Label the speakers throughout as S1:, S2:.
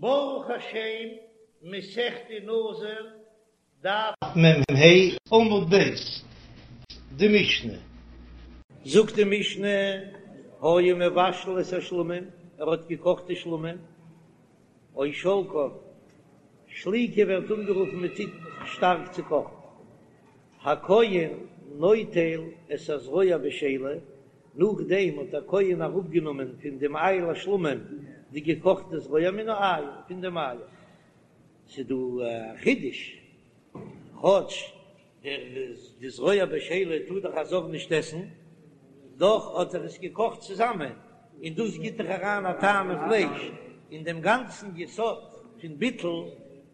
S1: ברוך השם, מסכת נזיר, דף מ"ה, עמוד ב', די משנה. זאגט די משנה, היה מבשל את השלמים, ער האט געקאכט די שלמים, או שולקן, שליקה ווערט אנגערופן מען טוט שטארק צו קאכן, הכהן נוטל את הזרוע בשלה, נאכדעם האט דער כהן אראפגענומען פון דעם איל השלמים די געקאכטע זרוע מן האיל, פון דעם איל. ס'איז דא א חידוש, כאטש דער די זרוע בשלה טאר דאך א זר נישט עסן, דאך האט ער עס געקאכט צוזאמען, און דאס גיט דאך אריין א טעם אין פלייש, און דעם גאנצן יסוד פון ביטול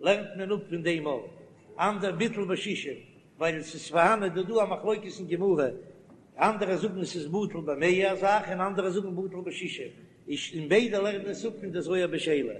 S1: לערנט מען אפ פון דעם אויך, אנדער ביטול בשישים, ווייל עס איז פארהאן איז דא דא א מחלוקת אין גמרא, אנדערע זאגן עס איז בטל במאה א זאך און אנדערע זאגן בטל בשישים, איז און ביידע לערנען עס אפ פון די זרוע בשלה,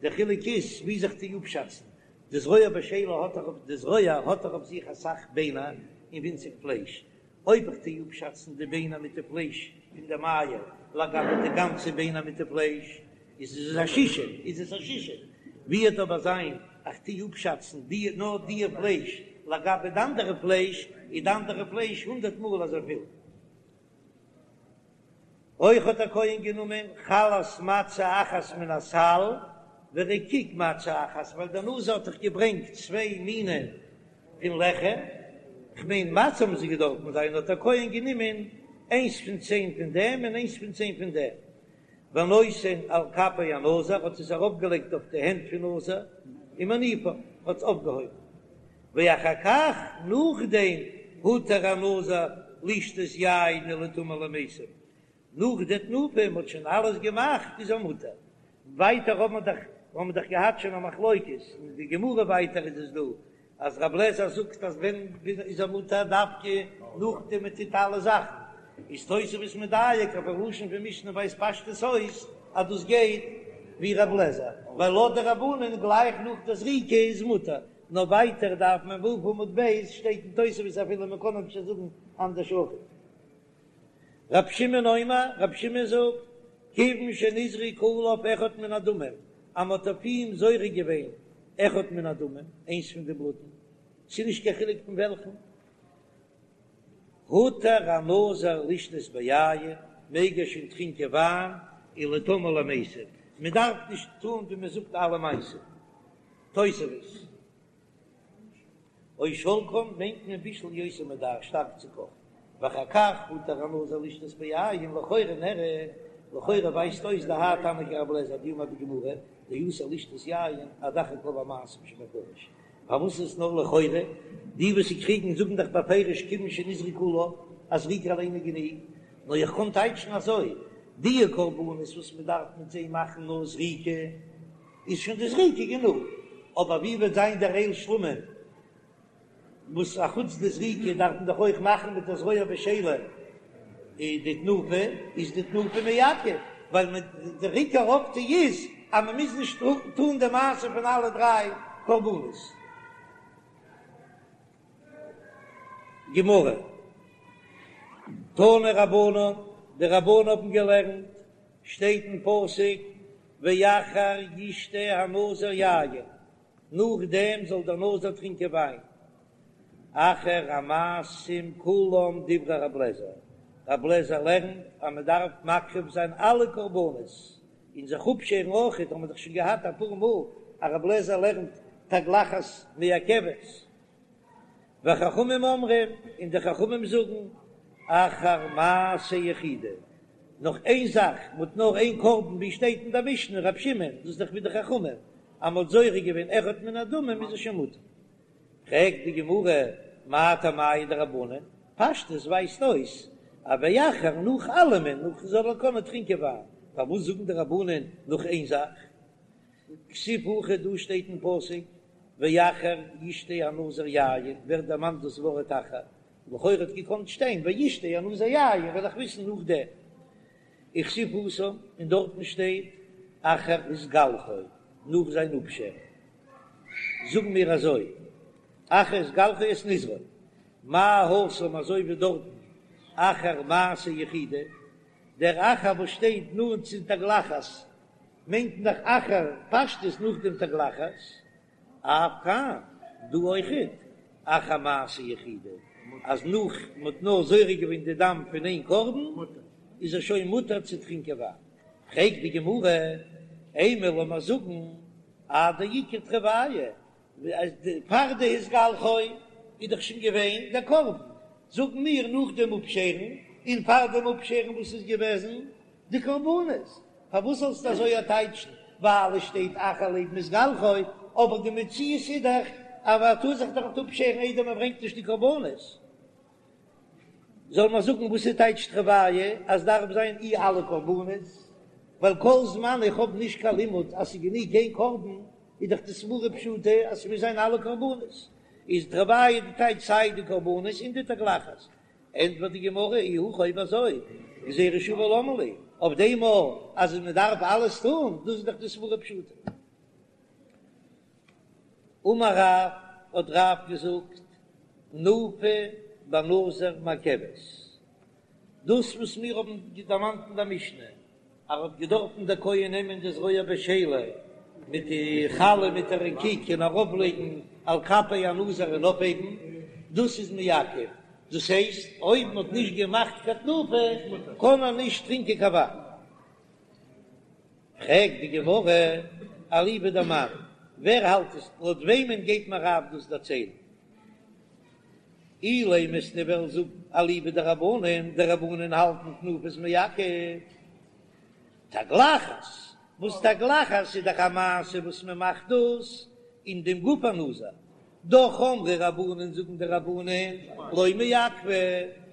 S1: די חילוק איז ווי זיך צו אפשאצן, די זרוע בשלה האט דאך אויף די זרוע האט דאך אויף זיך אסאך ביינער און ווינציג פלייש, אויב איך טו אפשאצן די ביינער מיט די פלייש פון דעם איל לגבי די גאנצע ביינער מיט די פלייש, איז עס א שישים, איז עס א שישים. ווי וועט אבער זיין איך טו אפשאצן די נאר די פלייש לגבי די אנדערע פלייש, איז די אנדערע פלייש הונדערט מאל אזויפיל. אויך האט דער כהן גענומען חלת מצה אחת מן הסל ורקיק מצה אחת, ווייל דער נזיר האט דאך געברענגט צוויי מינים פון לחם, כ'מיין מצה האבן זיי געדארפן זיין, האט דער כהן גענומען איינס פון צען פון דעם און איינס פון צען פון דעם, ונותן על כפי הנזיר, האט עס ארויפגעלייגט אויף די הענט פון נזיר, ומניפן, האט עס אויפגעהויבן. ואחר כך, נאכדעם, הותר הנזיר לשתות יין ולטמא למתים, נאך די תנופה, מ'האט שוין אלעס געמאכט, איז ער מותר. ווייטער האבן מיר דאך, האבן מיר דאך געהאט שוין א מחלוקת, אין די גמרא ווייטער איז עס דא, אז רב לעזער זאגט אז ווען איז ער מותר דווקא נאכדעם מען טוט אלע זאכן, איז תוספות מדייק אויפן לשון פון משנה ווייזט פשטות אויס אז דאס גייט ווי רב לעזער, ווייל לויט די רבנן גלייך נאך די זריקה איז מותר, נאר ווייטער דף מ"ו עמוד ב' שטייט אין תוספות אפילו מען קען אפשר זאגן אנדערש אויך. רב שמעון אומר, רב שמעון זאגט, כיוון שנזרק עליו אחד מן הדמים, אז מען האט אויף אים זורק געווען אחד מן הדמים, איינס פון די בלוטן, ס'איז נישט קיין חילוק פון וועלכן, הותר הנזיר לשתות ביין, מעג ער שוין טרינקען וויין, ולטמא למתים, מען דארף נישט טון ווי מען זאגט אלע מעשים. תוספות. או שולקן מיינט מען בישול יותר מדאי שטארק צו קאכן, ואחר כך הותר הנזיר לשתות ביין לכאורה נראה, לכאורה ווייזט אויס דהאי תנא כרבי אליעזר דאמר בגמרא דאסור לשתות יין עד אחר כל המעשים שבקודש, פארוואס איז עס נאר לכאורה? די וואס קריגן זאגן דאך בפירוש כיוון שנזרק עליו אז זריקה אליין איז גענוג, נאר איך קען טייטשן אזוי, די קרבנות וואס מען דארף מיט זיי מאכן נאר זריקה, איז שוין די זריקה גענוג, אבער ווי וועט זיין דער איל שלמים וואס אחוץ די זריקה דארף מען דאך אויך מאכן מיט די זרוע בשלה די תנופה, איז די תנופה מעכב, ווייל מען דער עיקר אויפטו איז אז מען מוז נישט טון די מעשה פון אלע דריי קרבנות. גמרא, תנו רבנן, די רבנן האבן געלערנט, שטייט אין פסוק, ואחר ישתה הנזיר יין, נאכדעם זאל דער נזיר טרינקען וויין, אחר המעשים כולם דברי רב לעזער, רב לעזער לערנט אז מען דארף מקריב זיין אלע קרבנות, און זיך אפשערן אויכעט, האבן מיר דאך שוין געהאט אפאר מאל אז רב לעזער לערנט תגלחת מעכבת. וחכמים אומרים, און די חכמים זאגן, אחר מעשה יחידי, נאך איין זאך, מ'האט נאר איין קרבן, ווי שטייט אין די משנה, רב שמעון, דאס איז דאך ווי די חכמים, אז מ'האט זורק געווען אחד מן הדמים איז עס שוין מותר. פרעגט די גמרא, מאי טעמייהו דרבנן, פשטות ווייזט אויס אז ואחר נאך אלעמען, נאך זאל ער קענען טרינקען וויין, פארוואס זאגן די רבנן נאך איין זאך? כתיב הכא דא שטייט אין פסוק ואחר ישתה הנזיר יין ווערט דערמאנט דאס ווארט אחר, לכאורה האט געקאנט שטיין וישתה הנזיר יין וועל איך וויסן נאכדעם. וכתיב התם און דארטן שטייט אחר התגלחו נאך זיין אפשערן. זאגן מיר אזוי אחר התגלחו את נזרו מה התם אזוי ווי דארטן אחר מעשה יחידי דער אחר וואס שטייט נאנט צו תגלחת. מיינט מען דאך אחר פשטות נאך דעם תגלחת, אף כאן, דא אויכעט, אחר מעשה יחידי, אז נאך מען האט נאר זורק געווען די דם פון איין קרבן, איז ער שוין מותר צו טרינקען וויין. פרעגט די גמרא, אימא לאמיר זאגן עד דאיכא תרוייהו, פאר די התגלחו איז דאך שוין געווען דער קרבן, זאגן מיר נאך דעם אפשערן, און פאר דעם אפשערן וואס איז געוועזן די קרבנות, פארוואס זאלסטו אזוי טייטשן ווייל עס שטייט אחר לעבן התגלחו, אבער די מציאות איז דאך אז מען טאר זיך דאך נישט אפשערן איידער מען ברענגט נישט די קרבנות. זאל מען זאגן וואס איז טייטש תרוייהו אז דארף זיין אי אלע קרבנות, ווייל כל זמן איך האב נישט קיין לימוד אז ס'איז גענוג איין קרבן, איז דאך די סברא פשוטה אז ס'מוז זיין אלע קרבנות, איז תרוייהו די טייטש סיי די קרבנות און די תגלחת. ענטפערט די גמרא, אי הכי אויב אזוי, גזירה שווה למה לי, אויף דעם מאל אז מען דארף אלעס טון, דאס איז דאך די סברא פשוטה. אמר רב, האט רב געזאגט, תנופה בנזיר מעכבת, דאס וואס מיר האבן דערמאנט אין דער משנה, אז ער האט געדארפן דער כהן נעמען די זרוע בשלה מיט די חלה מיט די רקיק און ארויפלייגן על כפי הנזיר און אויפהייבן, דאס איז מעכב, דאס הייסט אויב מען האט נישט געמאכט קיין תנופה קען ער נישט טרינקען קיין וויין. פרעגט די גמרא, אליבא דמאן, ווער האלט עס, לויט וועמען גייט מיר רב דאס דערציילן? אילימא וועסטו וועלן זאגן אליבא דרבנן, די רבנן האלטן תנופה איז מעכב תגלחת, וואס תגלחת איז דאך א מעשה וואס מען מאכט דאס אין דעם גוף הנזיר, דאך אמרי רבנן זאגן די רבנן לא מעכבא,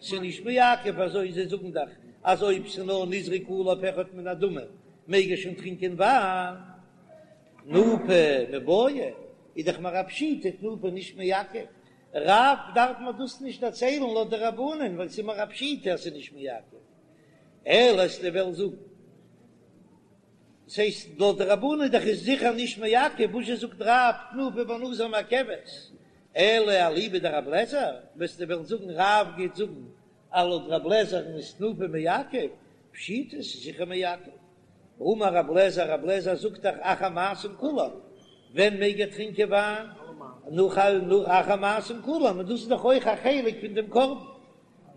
S1: ס'איז נישט מעכב אזוי זיי זאגן דאך אז אויב ס'איז נאר נזרק עליו אחד מן הדמים מעג ער שוין טרינקען וויין, תנופה מיבעיא איז דאך מיר א פשיטא תנופה נישט מעכב, רב דארף מען דאס נישט דערציילן לויט די רבנן ווייל ס'איז מיר א פשיטא אז ס'איז נישט מעכב, אלא וועסטו וועלן זאגן ס'הייסט לויט די רבנן דאך איז זיכער נישט מעכב, וואס זשע זאגט רב תנופה בנזיר מעכבת, אלא אליבא דרבי אליעזר, וועסטו וועלן זאגן רב גייט זאגן אז לויט רבי אליעזר'ן איז תנופה מעכב, פשיטא ס'איז זיכער מעכב. האמר רבי אליעזר, רבי אליעזר זאגט דאך אחר מעשים כולם, ווען מעג ער טרינקען וויין? נאך אחר מעשים כולם, און דאס איז דאך אויך א חלק פון דעם קרבן.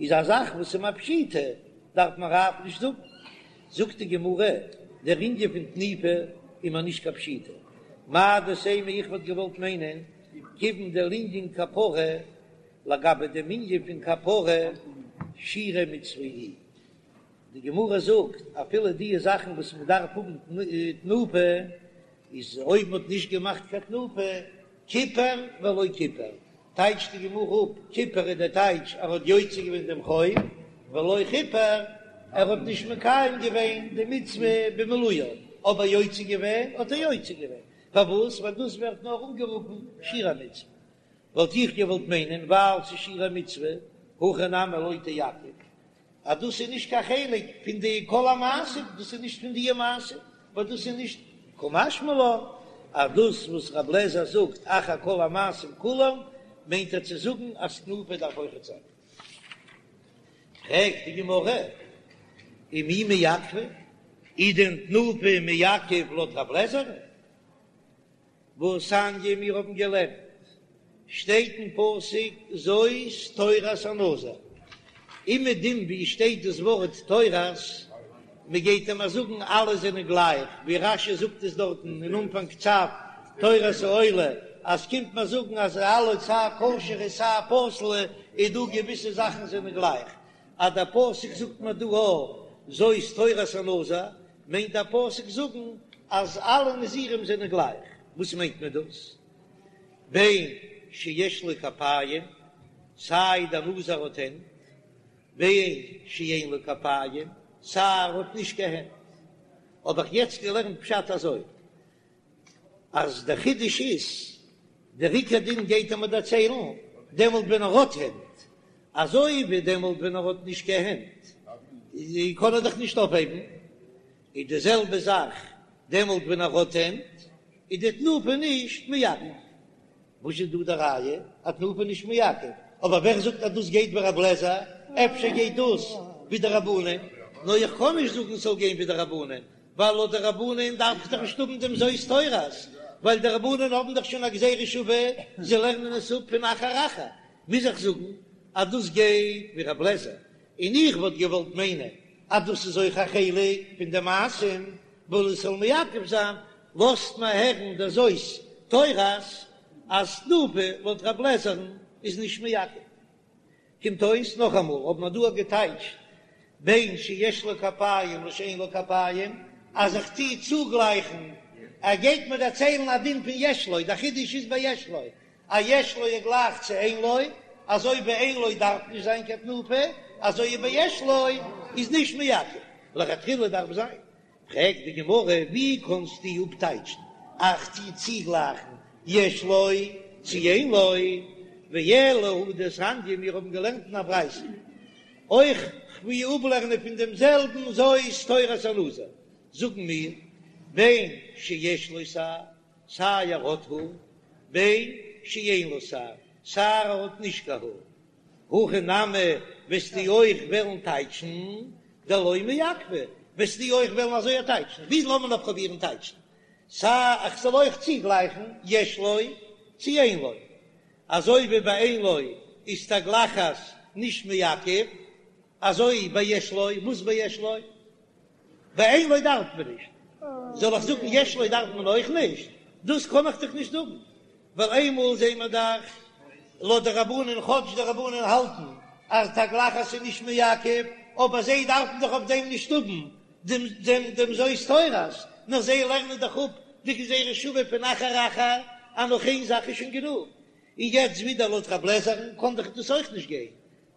S1: איז א זאך וואס איז א פשיטא, דארף מען רב נישט זאגן. זאגט די גמרא, דער ענין פון תנופה איז מיר נישט קיין פשיטא. מהו דתימא איך וואלט געוואלט מיינען, כיוון דלענין כפרה, לגבי דעם ענין פון כפרה, שירי מצוה היא. די גמרא זאגט, אפילו די זאכן וואס מען דארף האבן תנופה, איז אויב מען האט נישט געמאכט קיין תנופה, כיפר ולא כיפר, טייטשט די גמרא אפ, כיפר איז דער טייטש ער האט יוצא געווען דעם חוב, ולא כיפר, ער האט נישט מקיים געווען די מצוה במילואה, אבער יוצא געווען האט ער יוצא געווען, פארוואס? ווייל דאס ווערט נאר אנגערופן שירי מצוה, וואלט איך געוואלט מיינען ווייל ס'איז שירי מצוה, הכא נמי לא תעכב, אז דאס איז נישט קיין חלק פון די כל המעשים, דאס איז נישט פון די מעשים, ווייל דאס איז נישט קא משמע לן אז דאס וואס רב לעזער זאגט אחר כל המעשים כולם מיינט ער צו זאגן אז תנופה דארף אויכעט זיין. פרעגט די גמרא, ומי מעכבא, איז דען תנופה מעכב לויט רב לעזער? והתניא מיר האבן געלערנט, שטייט אין פסוק זאת תורת הנזיר, אומעדום ווי שטייט דאס ווארט תורת, מען גייט אים זאגן אלע זענען גלייך, ווי רש"י זאגט עס דארטן אין אנפאנג צו תורת העולה, אז קומט מען זאגן אז אלע סיי כשר'ע סיי פסול'ע איז דא געוויסע זאכן זענען גלייך, אז דער פסוק זאגט מיר דא א זאת תורת הנזיר, מיינט דער פסוק זאגן אז אלע נזירים זענען גלייך, וואס מיינט מען דאס? בין שיש לו כפיים, סיי דער נזיר האט הענט, בין שאין לו כפיים, סיי ער האט נישט קיין הענט. האב איך יעצט געלערנט פשט אזוי, אז דער חידוש איז, דער עיקר דין גייט ער מיר דערציילן דעמאלט ווען ער האט הענט, אזוי ווי דעמאלט ווען ער האט נישט קיין הענט קען ער דאך נישט אויפהייבן, איז די זעלבע זאך דעמאלט ווען ער האט הענט, איז די תנופה נישט מעכב. וואס איז דא די ראיה אז תנופה נישט מעכב? אבער ווער זאגט אז דאס גייט ווי רב לעזער? אפשר גייט דאס ווי די רבנן? נאר איך קען נישט זאגן ס'זאל גיין ווי די רבנן. ווייל לויט די רבנן דארף איך דאך נישט האבן דעם זאת תורת, ווייל די רבנן האבן דאך שוין א גזירה שווה, זיי לערנען עס אפ פון אחר אחר, מוז איך זאגן אז דאס גייט ווי רב לעזער, און איך וואלט געוואלט מיינען אז דאס איז אויך א חלק פון די מעשים, ווייל עס זאל מעכב זיין, לאזט מען הערן דער זאת תורת אז תנופה לויט רב לעזער'ן איז נישט מעכב. קומט אויס נאכאמאל האט מען דא געטייטשט בין שיש לו כפיים לשאין לו כפיים, אז איך טוה צוגלייכן, ער גייט מיר דערציילן א דין פון יש לו, דער חידוש איז ביי יש לו, אז יש לו איז גלייך צו אין לו, אזוי ביי אין לו דארף נישט זיין קיין תנופה, אזוי ביי יש לו איז נישט מעכב, לכתחילה דארף זיין. פרעגט די גמרא, ווי קענסטו אפטייטשן איך טו צוגלייכן יש לו צו אין לו, ואלא הא דתניא, מיר האבן געלערנט אין א ברייתא, אויך כ'וויל אפלערנען פון דעם זעלבן זאת תורת הנזיר, זאגן מיר, בין שיש לו שער, סיי ער האט האר, בין שאין לו שער, סיי ער האט נישט קיין האר. הכי נמי וועסטו אויך וועלן טייטשן דלא מעכבא, וועסטו אויך וועלן אזוי טייטשן, ווי לאמיר נאר פרובירן טייטשן, סיי איך זאל אויך צוגלייכן יש לו צו אין לו, אזוי ווי ביי אין לו איז תגלחת נישט מעכב, אזוי ביי יש לו, וואס ביי יש לו? ביי אין לו דארף מען נישט, זאל איך זאגן יש לו דארף מען אויך נישט? דאס קען איך דאך נישט זאגן, ווייל איינמאל זעהן מיר דאך לויט די רבנן, כאטש די רבנן האלטן אז תגלחת איז נישט מעכב, אבער זיי דארפן דאך אויף דעם נישט האבן דעם דעם דעם זאת תורת, נאר זיי לערנען דאך אפ די גזירה שוה פון אחר אחר, אז נאך איין זאך איז שוין גענוג. און יעצט ווידער לויט רב לעזער'ן קען דאך דאס אויך נישט גיין,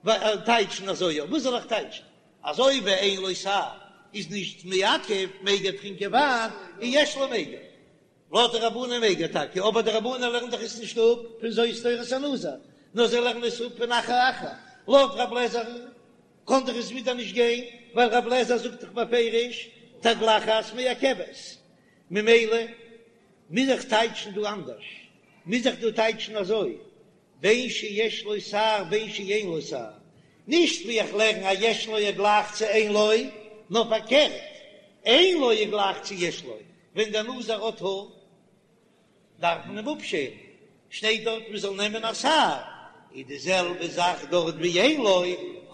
S1: ווייל טייטשן אזוי, וואס זאל איך טייטשן? אזוי ווי אין לו שער איז נישט מעכב מעג ער טרינקען וויין און יש לו מעג ער. לויט די רבנן מעג ער טאקע, אבער די רבנן לערנען דאך עס נישט אפ פון זאת תורת הנזיר, נאר זיי לערנען עס אפ פון אחר אחר. לויט רב לעזער'ן קען דאך עס ווידער נישט גיין, ווייל רב לעזער זאגט דאך בפירוש תגלחת מעכבת. ממילא מוז איך טייטשן דא אנדערש, מוז איך דא טייטשן אזוי, בין שיש לו שער בין שאין לו שער, נישט ווי איך לערן אז יש לו איז גלייך צו אין לו, נאר פארקערט, אין לו איז גלייך צו יש לו, ווען דער נזיר האט האר דארף מען אים אפשערן, שטייט דארט מען זאל נעמען א שער, איז די זעלבע זאך דארט ווי אין לו,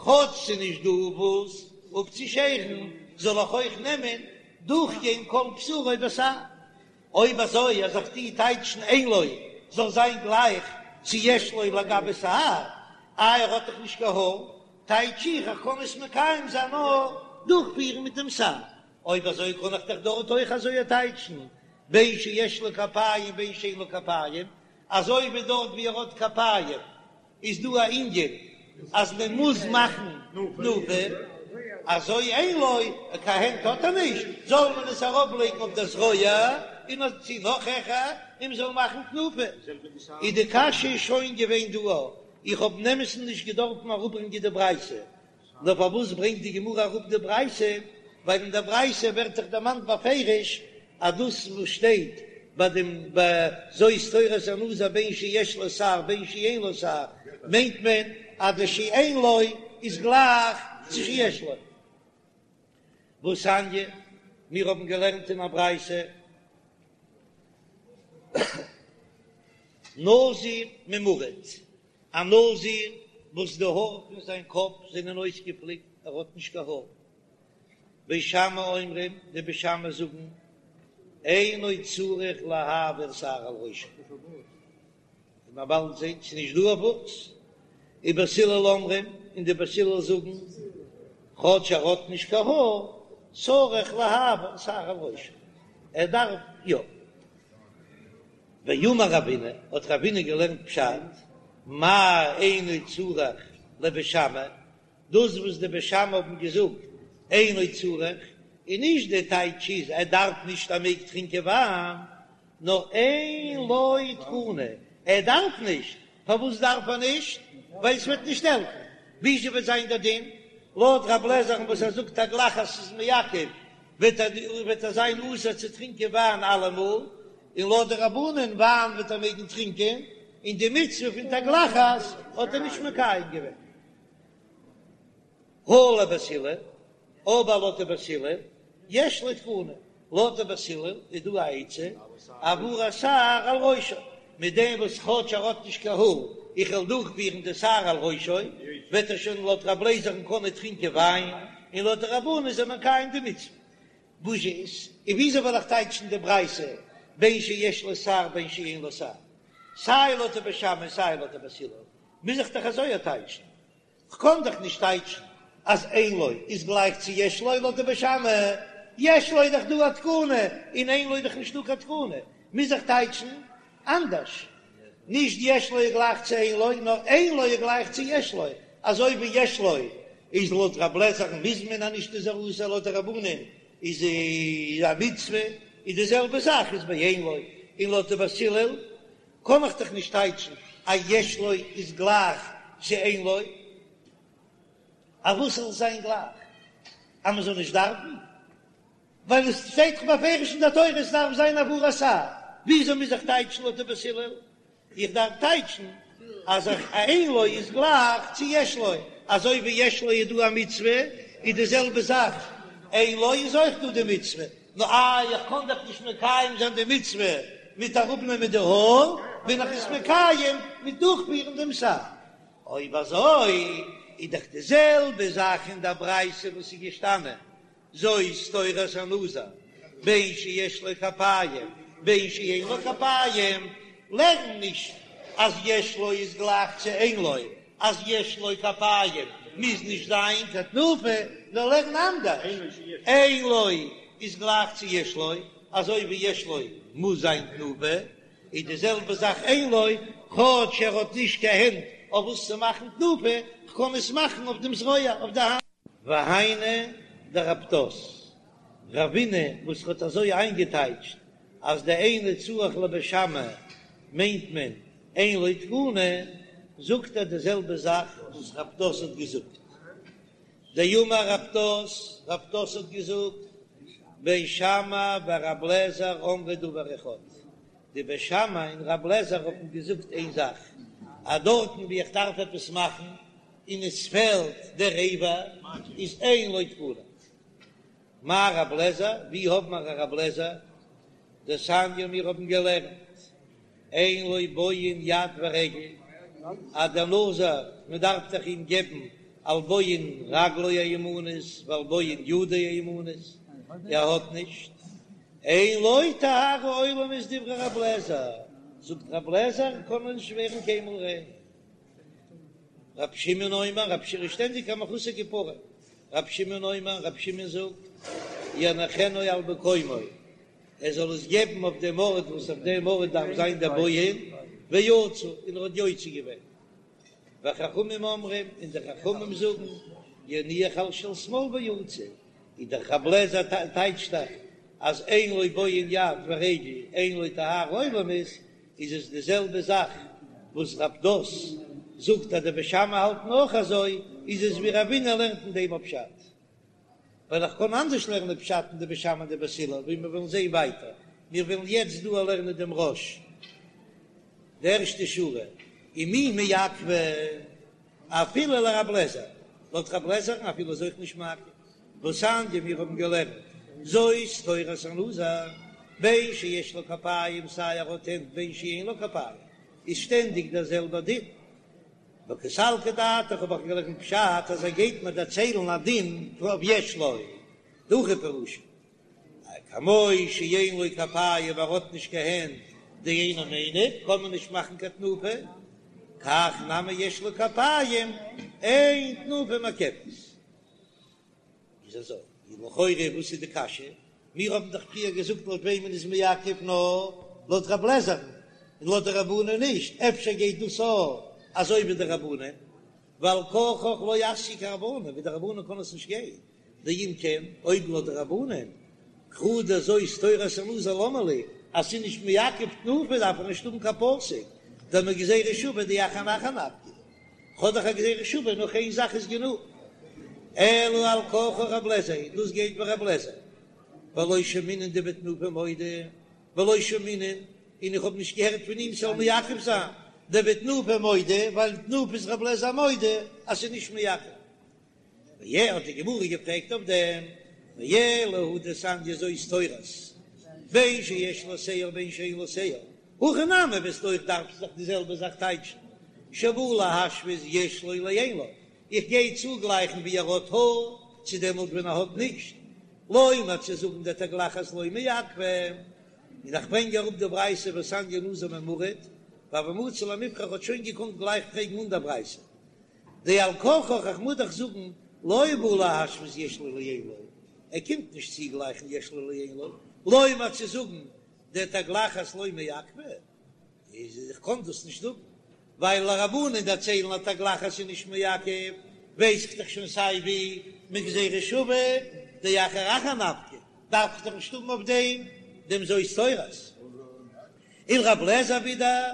S1: כאטש ס'איז נישט דא וואס אפצושערן, זאל איך אויך נעמען דורכגיין כל בשרו בשער. אויב אזוי אז איך טוה טייטשן אין לו זאל זיין גלייך צו יש לו לגבי שער, איי ער האט דאך נישט קיין האר, טייטש איך איך קען עס מקיים זיין נאר דורכפירן מיט דעם שער, אויב אזוי קען איך דאך דארט אויך אזוי טייטשן בין שיש לו כפיים בין שאין לו כפיים, אזוי ווי דארט ווי ער האט כפיים איז דא א ענין אז מען מוז מאכן תנופה, אזוי אין לו, קיין הענט האט ער נישט, זאל מען עס ארויף לייגן אויף די זרוע און אויף צו נאך העכער און מען זאל מאכן תנופה. איז די קשיא שוין געווען דא, איך האב אין אמת'ן נישט געדארפן אראפברענגען די ברייתא, נאר פארוואס ברענגט די גמרא אראפ די ברייתא, ווייל אין דער ברייתא ווערט דאך דערמאנט בפירוש אז דאס וואס שטייט ביי דעם זאת תורת הנזיר בין שיש לו שער בין שאין לו שער, מיינט מען אז די שאין לו איז גלייך צו שיש לו. והתניא, מיר האבן געלערנט אין א ברייתא, נזיר ממורט, א נזיר וואס די האר פון זיין קאפ זענען אויסגעפליקט, ער האט נישט קיין האר. בית שמאי אומרים, די בית שמאי זאגן, אינו צריך להעביר שער על ראשו. ווי מיר באלד זען, ס'איז נישט דא אויף וואס. ובית הלל אומרים, און די בית הלל זאגן, כאטש ער האט נישט קיין האר, צריך להעביר שער על ראשו, ער דארף יא. ואמר רבינא, האט רבינא געלערנט פשט, מאי אינו צריך לבית שמאי, דאס וואס די בית שמאי האבן געזאגט אינו צריך, איז נישט די טייטש איז ער דארף נישט ער מעג טרינקען וויין, נאר אין לו תקנה, ער דארף נישט, פארוואס דארף ער נישט? ווייל עס וועט נישט העלפן, וויאזוי וועט זיין דער דין? לויט רב לעזער'ן וואס ער זאגט תגלחת איז מעכב, וועט ער וועט ער זיין אסור צו טרינקען וויין אלעמאל, און לויט די רבנן וויין וועט ער מעגן טרינקען, און די מצוה פון תגלחת האט ער נישט מקיים געווען. הא לבית הלל, אבער לויט די בית הלל, יש לו תקנה. לויט די בית הלל איז דא א עצה, העברת שער על ראשו, מיט דעם וואס כאטש ער האט נישט קיין האר, איך וועל דורכפירן די שער על ראשו, וועט ער שוין לויט רב לעזער'ן קענען טרינקען וויין, און לויט די רבנן איז ער מקיים די מצוה. וואס איז, און וויאזוי וועל איך טייטשן די ברייתא בין שיש לו שער בין שאין לו שער? סיי לויט די בית שמאי און סיי לויט די בית הלל, מוז איך דאך אזוי טייטשן. כ'קען דאך נישט טייטשן אז אין לו איז גלייך צו יש לו לויט די בית שמאי, יש לו איז דאך דא א תקנה און אין לו איז דאך נישטא קיין תקנה, מוז איך טייטשן אנדערש, נישט יש לו איז גלייך צו אין לו, נאר אין לו איז גלייך צו יש לו, אזוי ווי יש לו איז לויט רב לעזער'ן מוז מען אז נישט איז ער אסור לויט די רבנן איז א מצוה, איז די זעלבע זאך איז ביי אין לו, און לויט די בית הלל קען איך דאך נישט טייטשן אז יש לו איז גלייך צו אין לו, אז וואס זאל זיין גלייך? אז מען זאל נישט דארפן? ווייל עס שטייט דאך בפירוש אין דער תורה עס דארף זיין העברת שער, וויאזוי מוז איך טייטשן לויט די בית הלל? איך דארף טייטשן אז אין לו איז גלייך צו יש לו, אזוי ווי יש לו איז דא א מצוה, איז די זעלבע זאך אין לו איז אויך דא די מצוה, נו איי איך קען דאך נישט מקיים זיין די מצוה מיט אראפנעמען די האר, בין איך עס מקיים מיט דורכפירן דעם שער. אויב אזוי איז דאך די זעלבע זאך אין דער ברייתא וואס איז געשטאנען זאת תורת הנזיר, בין שיש לו כפיים בין שאין לו כפיים, לערן נישט אז יש לו איז גלייך צו אין לו, אז יש לו כפיים מוז נישט זיין קיין תנופה, נאר לערן אנדערש, אין לו איז גלייך צו יש לו, אזוי ווי יש לו מוז זיין תנופה, איז די זעלבע זאך אין לו, כאטש ער האט נישט קיין הענט אויף וואס צו מאכן תנופה, כ'קען עס מאכן אויף דעם זרוע, אויף די האנט. והיינו דרב פדת, רבינא וואס האט אזוי איינגעטייטשט אז די אינו צריך לבית שמאי מיינט מען אין לו תקנה, זאגט ער די זעלבע זאך וואס רב פדת האט געזאגט. דאמר רב פדת, רב פדת האט געזאגט, בית שמאי ורב לעזר אמרו דבר אחד, די בית שמאי און רב לעזר האבן געזאגט איין זאך, אז דארטן ווי איך דארף עפעס מאכן און עס פעלט דער אבר איז אין לו תקנה. מאי רב לעזר, ווי האבן מיר א רב לעזר? דתניא מיר האבן געלערנט אין לו בוהן יד ורגל, אז דער נזיר מען דארף דאך אים געבן על בוהן רגלו הימנית ועל בוהן ידו הימנית, ער האט נישט, אין לו טהרה עולמית דברי רב לעזר, זאגט רב לעזר קען מען נישט ווערן קיינמאל ריין. רב שמעון אומר, רב שמעון איז שטענדיג א מחוסר כפרה, רב שמעון אומר, רב שמעון זאגט, יניחנו על מקומו, ער זאל עס געבן אויף דעם ארט וואס אויף דעם ארט דארף זיין דער בוהן, ויצא, און ער האט יוצא געווען. וחכמים אומרים, און די חכמים זאגן, יניח על של שמאל ויצא, איז דער רב לעזער טייטשט דאך אז אין לו בוהן יד ורגל אין לו טהרה עולמית, איז עס די זעלבע זאך וואס רב פדת זאגט אז די בית שמאי האלטן אויך אזוי, איז עס ווי רבינא לערנט אין דעם א פשט, ווייל איך קען אנדערש לערנען פשט אין די בית שמאי און די בית הלל, ווי מיר וועלן זען ווייטער, מיר וועלן יעצט דא לערנען דעם רא"ש, די ערשטע שורה, ומי מעכבא אפילו לרב לעזער, לויט רב לעזער'ן אפילו איז אויך נישט מעכב, והתניא מיר האבן געלערנט זאת תורת הנזיר, בין שיש לו כפיים סיי ער האט הענט בין שאין לו כפיים איז שטענדיג דער זעלבער דין. וקא סלקא דעתך האב איך געלערנט פשט אז ער גייט מיר דערציילן א דין אויף יש לו, דהכי פירושא כמו שאין לו כפיים ער האט נישט קיין הענט דאינו מניף קען מען נישט מאכן קיין תנופה, כך נמי יש לו כפיים אין תנופה מעכבת. איז אזוי, איז לכאורה וואס איז די קשיא? מיר האבן דאך פריער געזאגט לויט וועמען איז מעכב נאר לויט רב לעזער'ן און לויט די רבנן נישט, אפשר גייט דאס אויך אזוי ווי די רבנן, ועל כרחך לא אתיא כרבנן, ווי די רבנן קען עס נישט גיין, דאם כן, אויב לויט די רבנן, קרא דזאת תורת הנזיר למה לי, אז ס'איז נישט מעכב תנופה דארף איך נישט האבן קיין פסוק, דמגזירה שוה דאחר אחר נפקא. כ'האב דאך א גזירה שוה, נאך איין זאך איז גענוג. אלא על כרחך רב לעזער, דאס גייט ווי רב לעזער. ולא שמעינן דבתנופה מודה, ולא שמעינן, און איך האב נישט געהערט פון אים ס'זאל מעכב זיין, דבתנופה מודה, ווייל תנופה איז רב לעזער מודה אז ס'איז נישט מעכב. ווי האט די גמרא געפרעגט אויף דעם? ואלא הא דתניא זאת תורת, בין שיש לו שער בין שאין לו שער, הכא נמי וועסטו אויך דארפן זיך די זעלבע זאך טייטשן, שבא להשוות יש לו לאין לו, איך גיי צוגלייכן ווי ער האט האר צו דעמאלט ווען ער האט נישט, לומר צו זאגן דתגלחת לא מעכבא, און איך ברענג אראפ די ברייתא והתניא נזיר ממורט, והוה מצי למיפרך האט שוין געקאנט גלייך פרעגן אן דער ברייתא. דעל כרחך איך מוז דאך זאגן לא בא להשוות יש לו לאין לו, ער קומט נישט צוגלייכן יש לו לאין לו, לומר צו זאגן דתגלחת לא מעכבא, איז איך קען דאס נישט זאגן, ווייל לרבנן דערציילן אז תגלחת איז נישט מעכב, ווייס איך דאך שוין סיי ווי מגזירה שווה דאחר אחר נפקא, דארף איך דאך נישט האבן אויף דעם דעם זאת תורת. ולר' אליעזר ווידער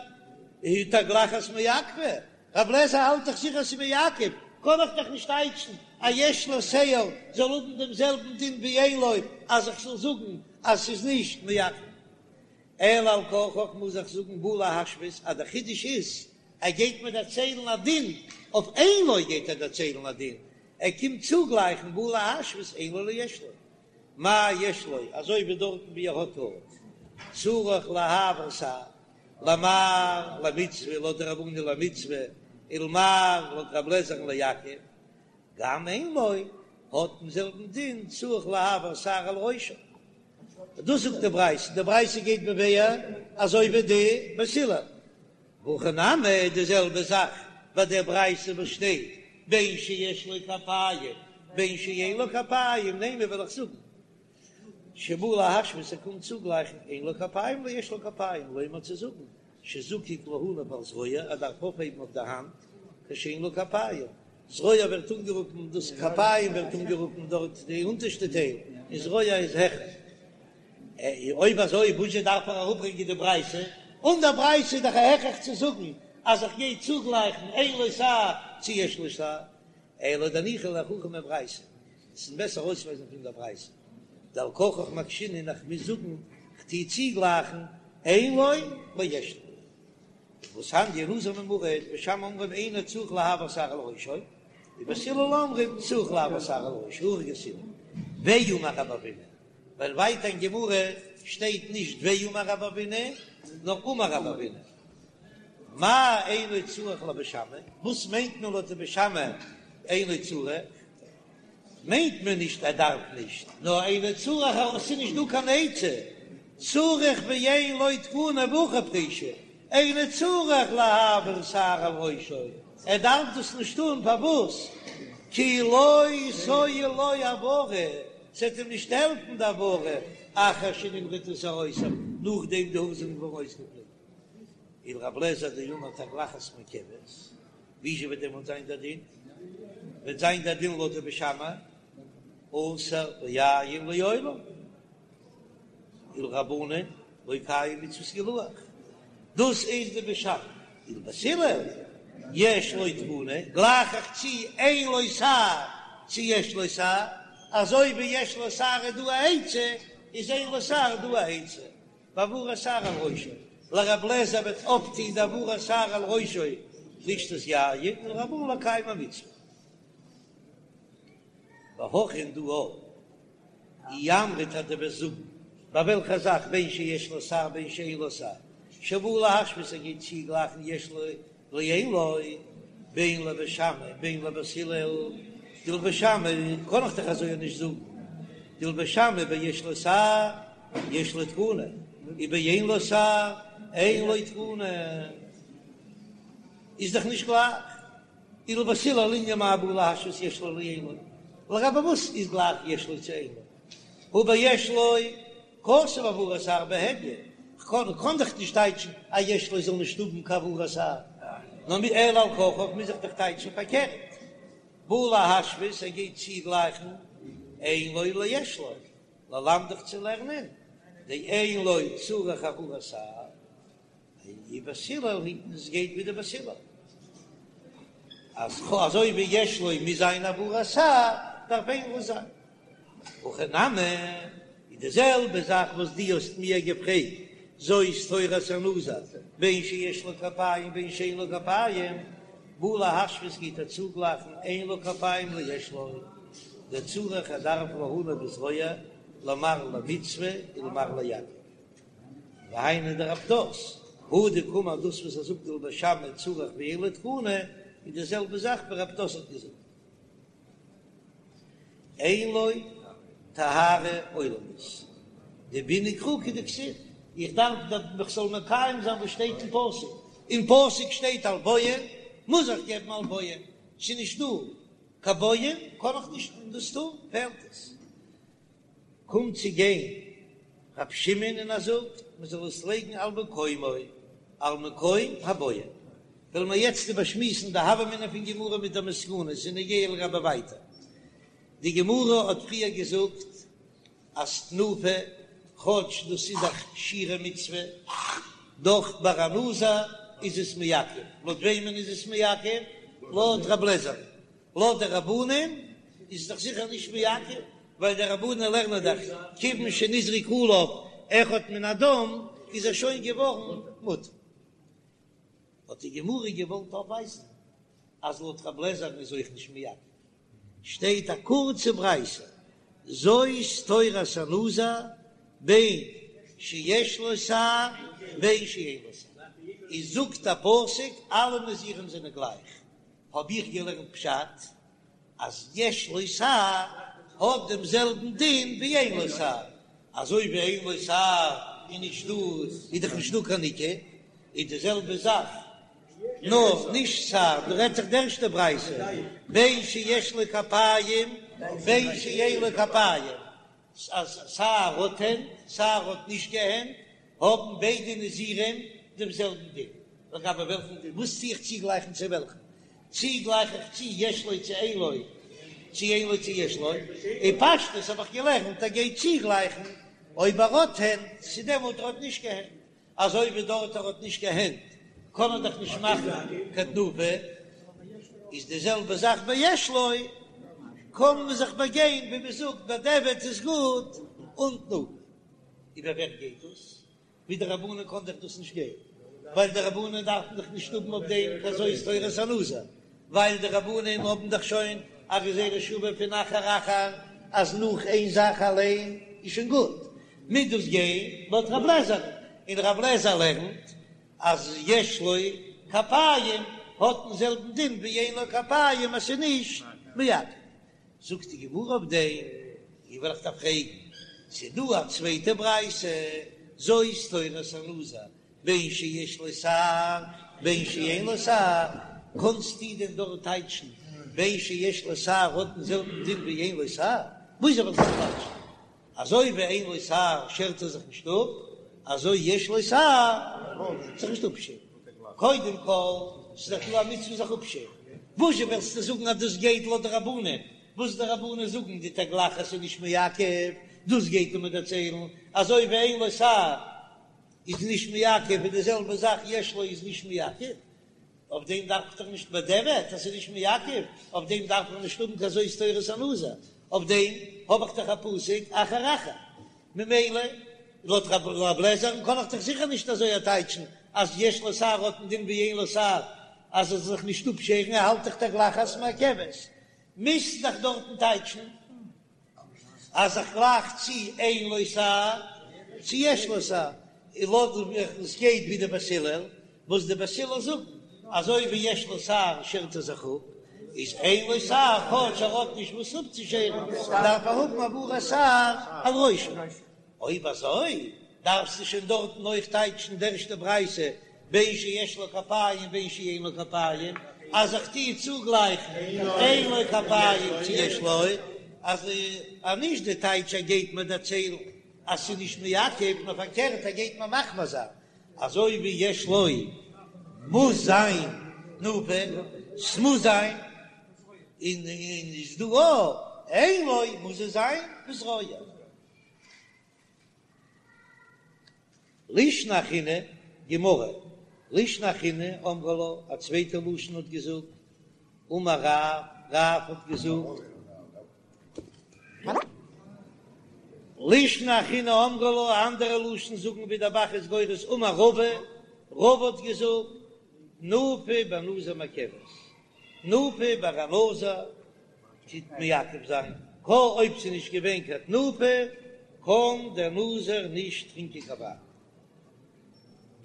S1: הא תגלחת מעכבא, ר' אליעזר האלט דאך זיכער ס'איז מעכב, קען איך דאך נישט טייטשן אז יש לו שער זאל האבן דעם זעלבן דין ווי אין לו אז איך זאל זאגן אז ס'איז נישט מעכב. אלא על כרחך מוז איך זאגן בא להשוות אז דער חידוש איז ער גייט מיר דערציילן א דין אויף אין לו גייט ער דערציילן א דין ער קומט צוגלייכן בא להשוות אין לו ליש לו מה יש לו אזוי ווי דארטן ווי ער האט האר צריך להעביר שער למר למצוה לויט די רבנן למצוה ולמר לויט רב לעזער'ן לעכב גם אין לו האט דעם זעלבן דין צריך להעביר שער על ראשו. דאס זאגט די ברייתא, די ברייתא גייט מבאר אזוי ווי די בית הלל. והכא נמי די זעלבע זאך ביי דער ברייתא וואס שטייט בין שיש לו כפיים בין שאין לו כפיים, נימא וועל איך זאגן שבא להשוות ער קומט צוגלייכן אין לו כפיים ליש לו כפיים, לומר צו זאגן שזקוק להניף על זרועו ער דארף אויפהייבן אויף די האנט כשאין לו כפיים, זרוע ווערט אנגערופן דאס כפיים ווערט אנגערופן דארט די אונטערשטע טייל און זרוע איז העכער. אויב אזוי וואזשע דארף ער אראפברענגען די ברייתא? אן דער ברייתא איז דאך א הכרח צו זאגן אז איך גיי צוגלייכן אין לו שער צו יש לו שער, אלא דניחא להוכחה מברייתא, עס איז בעסער ארויסווייזן פון דער ברייתא, דעל כרחך מקשינן איך מוז זאגן כ'טוה צוגלייכן אין לו ליש לו. והתניא נזיר ממורט, בית שמאי אומרים אינו צריך להעביר שער על ראשו, ובית הלל אומרים צריך להעביר שער על ראשו, הכי גרסינן. ואמר רב אבינא, ווייל ווייטער אין גמרא שטייט נישט ואמר רב אבינא, נאר אמר רב אבינא. מאי אינו צריך לבית שמאי, וואס מיינט מען לויט די בית שמאי אינו צריך? מיינט מען נישט ער דארף נישט, נאר אינו צריך אז עס איז נישט דא קיין עצה, צריך ואין לו תקנה והכי פירושא, אינו צריך להעביר שער על ראשו, ער דארף דאס נישט טון, פארוואס? כי לא תועיל לו העברה, ס'וועט אים נישט העלפן די העברה, אחר שנמרטו שערותיו, נאכדעם די האר זענען געווארן אויסגעפליקט. ולר' אליעזר דאמר תגלחת מעכבת, וויאזוי וועט דעמאלט זיין דער דין? וועט זיין דער דין לויט די בית שמאי, אסור ביין לעולם, ולרבנן לא קיים מצות גילוח, דאס איז די בית שמאי, ולבית הלל יש לו תקנה, גלייך איך צו אין לו שער צו יש לו שער, אזוי ווי יש לו שער איז דא א עצה, איז אין לו שער דא א עצה. בהעברת שער על ראשו, לר' אליעזר וועט אויפטוהן די העברת שער על ראשו לשתות יין ולרבנן לקיים המצוה. והכא און דא אי אמרת אז דו וועסט זאגן ביי וועלכע זאך בין שיש לו שער בין שאין לו שער שבא להשוות ער גייט צוגלייכן יש לו לאין לו, בין לבית שמאי בין לבית הלל, דלבית שמאי קען איך דאך אזוי נישט זאגן, דלבית שמאי ביש לו שער יש לו תקנה, ובאין לו שער אין לו תקנה, איז דאך נישט גלייך, ולבית הלל לענין מאי בא להשוות יש לו לאין לו, לגבי וואס איז גלייך יש לו צו אין לו, הא ביש לו כתב העברת שער בהדיא, כ'קען קען דאך נישט טייטשן אז יש לו זאל נישט האבן קיין העברת שער, נאר מ אלא על כרחך מוז איך דאך טייטשן פארקערט, בא להשוות ער גייט צוגלייכן אין לו ליש לו, ללמדך צו לערנען דאין לו צריך העברת שער. ובית הלל היטן עס גייט ווי די בית הלל אז אזוי ווי יש לו מוז זיין העברת שער דארף אין לו זיין הכא נמי איז די זעלבע זאך וואס דו האסט מיר געפרעגט זאת תורת הנזיר בין שיש לו כפיים בין שאין לו כפיים בא להשוות גייט ער צוגלייכן אין לו כפיים ליש לו. דצריך ער דארף להניא בזרוע למר למצוה ולמר לעכב והיינו דרב פדת הא דקאמר דאס וואס ער זאגט ולבית שמאי צריך ואין לו תקנה איז די זעלבע זאך ווי רב פדת האט געזאגט. אין לו טהרה עולמית, דבעינא קרא כדכתיב, איך דארף איך זאל מקיים זיין וואס שטייט אין פסוק, אין פסוק שטייט על בוהן, מוז איך געבן על בוהן, ס'איז נישט דא קיין בוהן קען איך נישט דאס טון, פעלט עס. קומט צו גיין רב שמעון און ער זאגט מען זאל עס לייגן על מקומו, על מקום הבוהן. וועלן מיר יעצט איבערשמועסן די הוה אמינא פון גמרא מיט די מסקנות און נוגע לגבי ווייטער. די גמרא האט פריער געזאגט אז תנופה, כאטש דאס איז א שירי מצוה, דאך ביי א נזיר איז עס מעכב. לויט וועמען איז עס מעכב? לויט רב לעזער. לויט די רבנן איז עס דאך זיכער נישט מעכב, ווייל די רבנן לערנען דאך כיוון שנזרק עליו אחד מן הדם איז ער שוין געווארן מותר. האט די גמרא געוואלט אויפווייזן אז לויט רב לעזער'ן איז אויך נישט מעכב, שטייט א קורצע ברייתא, זאת תורת הנזיר בין שיש לו שער בין שאין לו שער, איז זאגט א פסוק אלע נזירים זענען גלייך, האב איך געלערנט פשט אז יש לו שער האט דעם זעלבן דין ווי אין לו שער, אזוי ווי אין לו שער איז נישט דא איז דאך נישט דא קיין ניקור, איז די זעלבע זאך נאר נישט שער, דא רעדט זיך די ערשטע ברייתא בין שיש לו כפיים בין שאין לו כפיים, אז סיי ער האט הענט סיי ער האט נישט קיין הענט האבן ביידע נזירים דעם זעלבן דין, לגבי וועלכן דין? וואס טו איך צוגלייכן צו וועלכן? צי גלייך איך צו יש לו צו אין לו, צו אין לו צו יש לו? אין פשטות האב איך געלערנט ער גייט צוגלייכן אויב ער האט הענט צו דעמאלט ער האט נישט קיין הענט, אזוי ווי דארט ער האט נישט קיין הענט קען ער דאך נישט מאכן קיין תנופה, איז די זעלבע זאך ביי יש לו, קען מען זיך באגיין ווי מען זאגט בדיעבד איז גוט אן תנופה. איבער ווער גייט דאס? ווי די רבנן קען דאך דאס נישט גיין, ווייל די רבנן דארפן דאך נישט האבן אויף דעם קיין זאת תורת הנזיר, ווייל די רבנן האבן דאך שוין א גזירה שווה פון אחר אחר אז נאך איין זאך אליין איז שוין גוט, מוז דאס גיין לויט רב לעזער, און רב לעזער לערנט אז יש לו כפיים האט דעם זעלבן דין ווי אין לו כפיים אז ס'איז נישט מעכב. זאגט די גמרא אויף דעם, איך וועל איך דיר פרעגן, ס'איז דא א צווייטע ברייתא, זאת תורת הנזיר, בין שיש לו שער בין שאין לו שער, קענסטו דען דארט טייטשן בין שיש לו שער האט דעם זעלבן דין ווי אין לו שער? וויאזוי וועל איך דאס טייטשן? אזוי ווי אין לו שער שערט ער זיך נישט אפ, אזוי יש לו שער זיך נישט אפשערן. קודם כל, ס'איז דאך דא א מצוה זיך אפשערן. וואזשע וועסטו זאגן אז דאס גייט לויט די רבנן? וואס די רבנן זאגן די תגלחת איז נישט מעכב, דאס גייט ער מיר דערציילן, אזוי ווי אין לו שער איז נישט מעכב איז די זעלבע זאך יש לו איז נישט מעכב. אויף דעם דארף איך דאך נישט בדיעבד אז ס'איז נישט מעכב, אויף דעם דארף איך נישט האבן קיין זאת תורת הנזיר, אויף דעם האב איך דאך א פסוק אחר אחר, ממילא לויט רב לעזער'ן קען איך דאך זיכער נישט אזוי טייטשן אז יש לו שער האט א דין ווי אין לו שער אז ער זאל זיך נישט אפשערן, ער האלט דאך תגלחת מעכבת, מוזט דאך דארטן טייטשן. אז איך גלייך צו אין לו שער צו יש לו שער, און לויט ווי עס גייט ווי די בית הלל, וואס די בית הלל זאגן, אזוי ווי יש לו שער שערט ער זיך אפ, איז אין לו שער כאטש ער האט נישט וואס אפצושערן, דארף ער האבן העברת שער על ראשו. אויב אזוי דארפסטו שוין דארטן אויך טייטשן די ערשטע ברייתא בין שיש לו כפיים בין שאין לו כפיים, אז איך טוה צוגלייכן אין לו כפיים צו יש לו, אז נישט די טייטש ער גייט מיר דערציילן אז ס'איז נישט מעכב, נאר פארקערט ער גייט מיר מחמיר זיין, אזוי ווי יש לו מוז זיין תנופה, ס'מוז זיין, און איז דא אויך אין לו מוז עס זיין בזרוע. לישנא אחרינא, גמרא, לישנא אחרינא אמרי לה, א צווייטע לשון האט געזאגט, אמר רב, רב האט געזאגט, לישנא אחרינא אמרי לה, א אנדערע לשון זאגן ווי דער ב"ח איז גורס, אמר רבא, רבא האט געזאגט, תנופה בנזיר מעכבת, תנופה ביי א נזיר טוט מעכב זיין. קא אויב ס'איז נישט געווען קיין תנופה קען דער נזיר נישט טרינקען קיין וויין.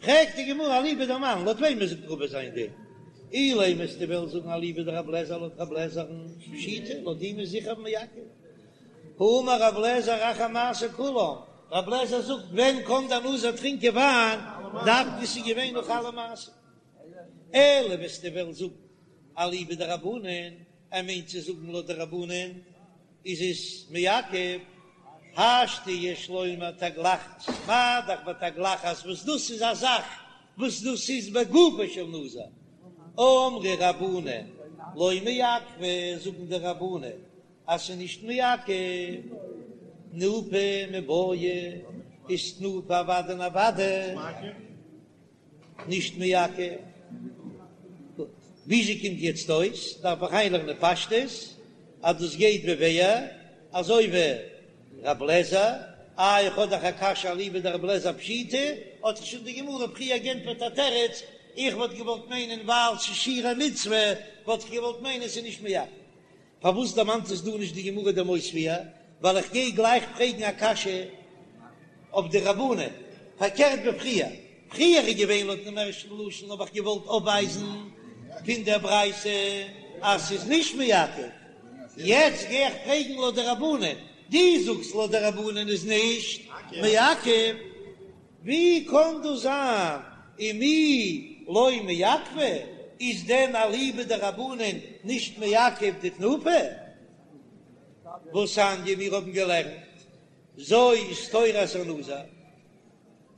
S1: פרעגט די גמרא אליבא דמאן, לויט וועמען זאגט רבא זיין דין? אילימא וועסטו וועלן זאגן אליבא דרבי אליעזר לויט רבי אליעזר'ן פשיטא, לויט אים איז זיכער מעכב. האמר רבי אליעזר אחר מעשה כולם, רבי אליעזר זאגט ווען קען דער נזיר טרינקען וויין, דווקא ס'איז געווען נאך אלע מעשים. אלא וועסטו וועלן זאגן אליבא דרבנן, ער מיינט צו זאגן לויט די רבנן איז עס מעכב, השתא יש לומר תגלחת, מה דאך בתגלחת וואס דאס איז א זאך וואס דאס איז בגופו של נזיר, אמרי רבנן לא מעכבא, זאגן די רבנן אז ס'איז נישט מעכב, תנופה מיבעיא, איז תנופה אוודאי און אוודאי. נישט מעכב. גוט, וויאזוי קומט יעצט אויס? דארף איך איינלערנען פשטות אז דאס גייט ווי ווער? אזוי ווי רב לעזער? איי איך האב דאך א קשיא אליבא דרב לעזער פשיטא, האט זיך שוין די גמרא פריער גענטפערט א תירוץ, איך וואלט געוואלט מיינען ווייל ס'איז שירי מצוה וואלט איך געוואלט מיינען ס'איז נישט מעכב. פארוואס דערמאנט עס דא נישט די גמרא דעם אויספיר? ווייל איך גיי גלייך פרעגן א קשיא אויף די רבנן, פארקערט ווי פריער, פריער איז געווען לויט דעם ערשטן לשון האב איך געוואלט אויפווייזן פון דער ברייתא אז ס'איז נישט מעכב, יעצט גיי איך פרעגן לויט די רבנן, דו זאגסט לויט די רבנן איז נישט מעכב. ווי קאן דאס זיין ומי לא מעכבא, איז דען אליבא דרבנן נישט מעכב די תנופה? והתניא מיר האבן געלערנט זאת תורת הנזיר,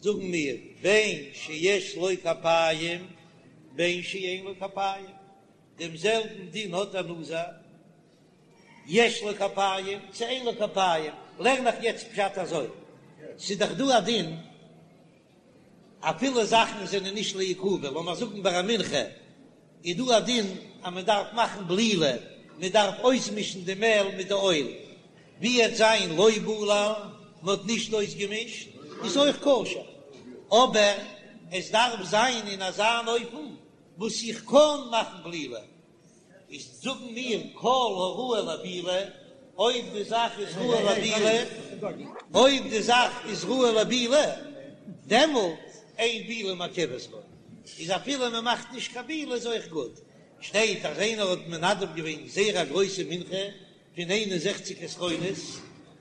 S1: זאגן מיר בין שיש לו כפיים בין שאין לו כפיים, דעם זעלבן דין האט דער נזיר, יש לו כפיים צו אין לו כפיים, לערן איך יעצט פשט אזוי, ס'איז דאך דא א דין אפילו זאכן זענען נישט לעיכובא, לאמיר זאגן ביי א מנחה איז דא א דין אז מען דארף מאכן בלילה, מען דארף אויסמישן די מעל מיט די אויל, ווי עט זיין לא בלל, מען האט נישט אויסגעמישט, איז אויך כשר, אבער עס דארף זיין אין אזא אן אופן וואס איך קען מאכן בלילה. איז זאגן מיר כל הראוי לבילה, אויב די זאך איז ראוי לבילה, אויב די זאך איז ראוי לבילה, דעמאלט אין בילה מעכבת בו, איז אפילו מען מאכט נישט קיין בילה איז אויך גוט. שטייט אז איינער האט מנדב געווען זייער א גרויסע מנחה פון 61 עשרונות,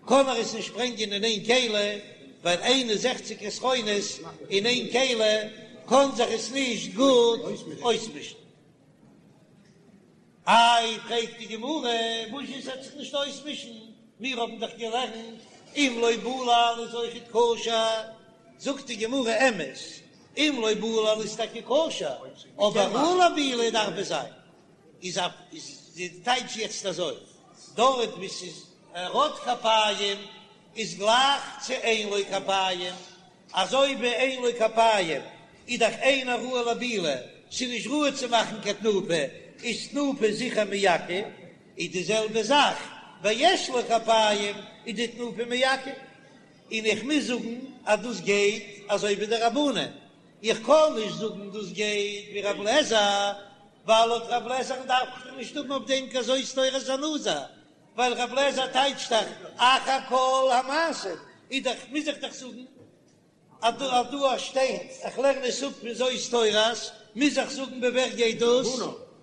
S1: קען ער עס נישט ברענגען אין איין כלי, ווייל 61 עשרונות אין איין כלי קען זיך עס נישט גוט אויסמישן. איי, פרעגט די גמרא, וואס איז ס'עט זיך נישט אויסמישן, מיר האבן דאך געלערנט אם לא בלל איז אויכעט כשר, זאגט די גמרא, אמת, אם לא בלל איז טאקע כשר, אבער ראוי לבילה דארף עס זיין, איז א איז די טייטש יעצט אזוי, דארט וואו ס'איז ער האט כפיים איז גלייך צו אין לו כפיים, אזוי ווי אין לו כפיים איז דאך אינו ראוי לבילה, ס'איז נישט ראוי צו מאכן קיין תנופה, איז תנופה זיכער מעכב, איז די זעלבע זאך ביי יש לו כפיים איז די תנופה מעכב, און איך מוז זאגן אז דאס גייט אזוי ווי די רבנן, איך קען נישט זאגן דאס גייט ווי רב לעזער, ווייל לויט רב לעזער'ן דארף איך נישט האבן אויף דעם קיין זאת תורת הנזיר, ווייל רב לעזער טייטשט דאך אחר כל המעשים, איז דאך מוז איך דאך זאגן אז דא אז דא שטייט איך לערן עס אפ פון זאת תורת, מוז איך זאגן ווי ווער גייט דאס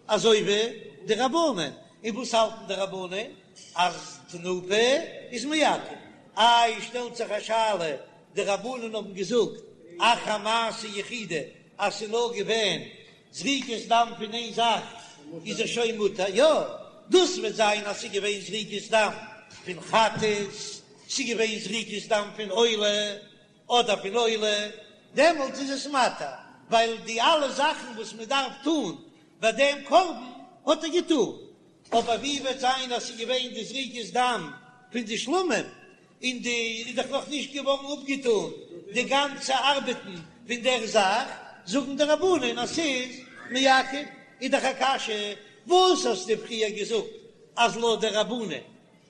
S1: אזוי ווי די רבנן, און וואס האלטן די רבנן אז תנופה איז מעכב, איי שטעלט זיך א שאלה, די רבנן האבן געזאגט אחר מעשה יחידי אז ס'איז נאר געווען זריקת דם פון איין זאך איז ער שוין מותר, יא, דאס וועט זיין אז ס'איז געווען זריקת דם פון חטאת, ס'איז געווען זריקת דם פון עולה אדער פון עולה, דעמאלטס איז עס מתיר, ווייל די אלע זאכן וואס מען דארף טון ביי דעם קרבן האט ער געטון, אבער ווי וועט זיין אז ס'איז געווען די זריקת דם פון די שלמים, און די איז דאך נאך נישט געווארן אפגעטון די גאנצע ארבעטן פון דער זאך, זאגן די רבנן אז ס'איז מעכב, איז דאך א קשיא, וואס האסטו פריער געזאגט אז לויט די רבנן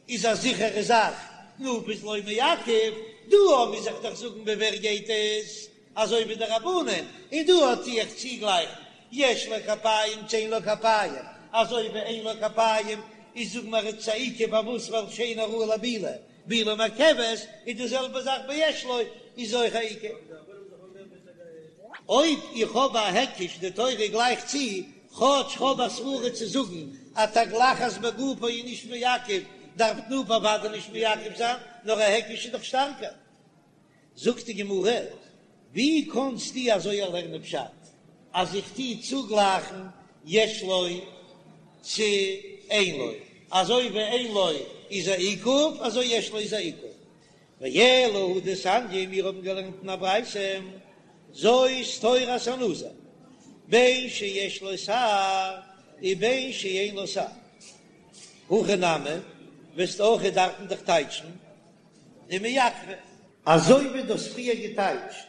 S1: איז א זיכערע זאך תנופה איז לא מעכב, דא מוז איך דאך זאגן ווי ווער גייט עס אזוי ווי די רבנן, און דא טו איך צוגלייכן יש לו כפיים צו אין לו כפיים, אזוי ווי אין לו כפיים. איז זאג מיר ס'איז א עיכוב פארוואס ווייל שאינו ראוי לבילה, בילה מעכבת, איז די זעלבע זאך ביי יש לו איז אויך א עיכוב. אויב איך האב א היקש די תורה גלייכט צו, כאטש כ'האב א סברה צו זאגן אז תגלחת בגופו איז נישט מעכב, דארף תנופה אוודאי נישט מעכב זיין, נאר א היקש איז דאך שטארקער. זאגט די גמרא, ווי קאנסטו אזוי לערנען פשט אז איך טו צוגלייכן יש לו צו אין לו, אזוי ווי אין לו איז א עיכוב אזוי יש לו איז א עיכוב, ואלא הא דתניא, מיר האבן געלערנט אין א ברייתא, זאת תורת הנזיר, בין שיש לו שער ובין שאין לו שער. הכא נמי, וועסטו אויך דארפן דאך טייטשן דמעכבא. אזוי ווי דו האסט פריער געטייטשט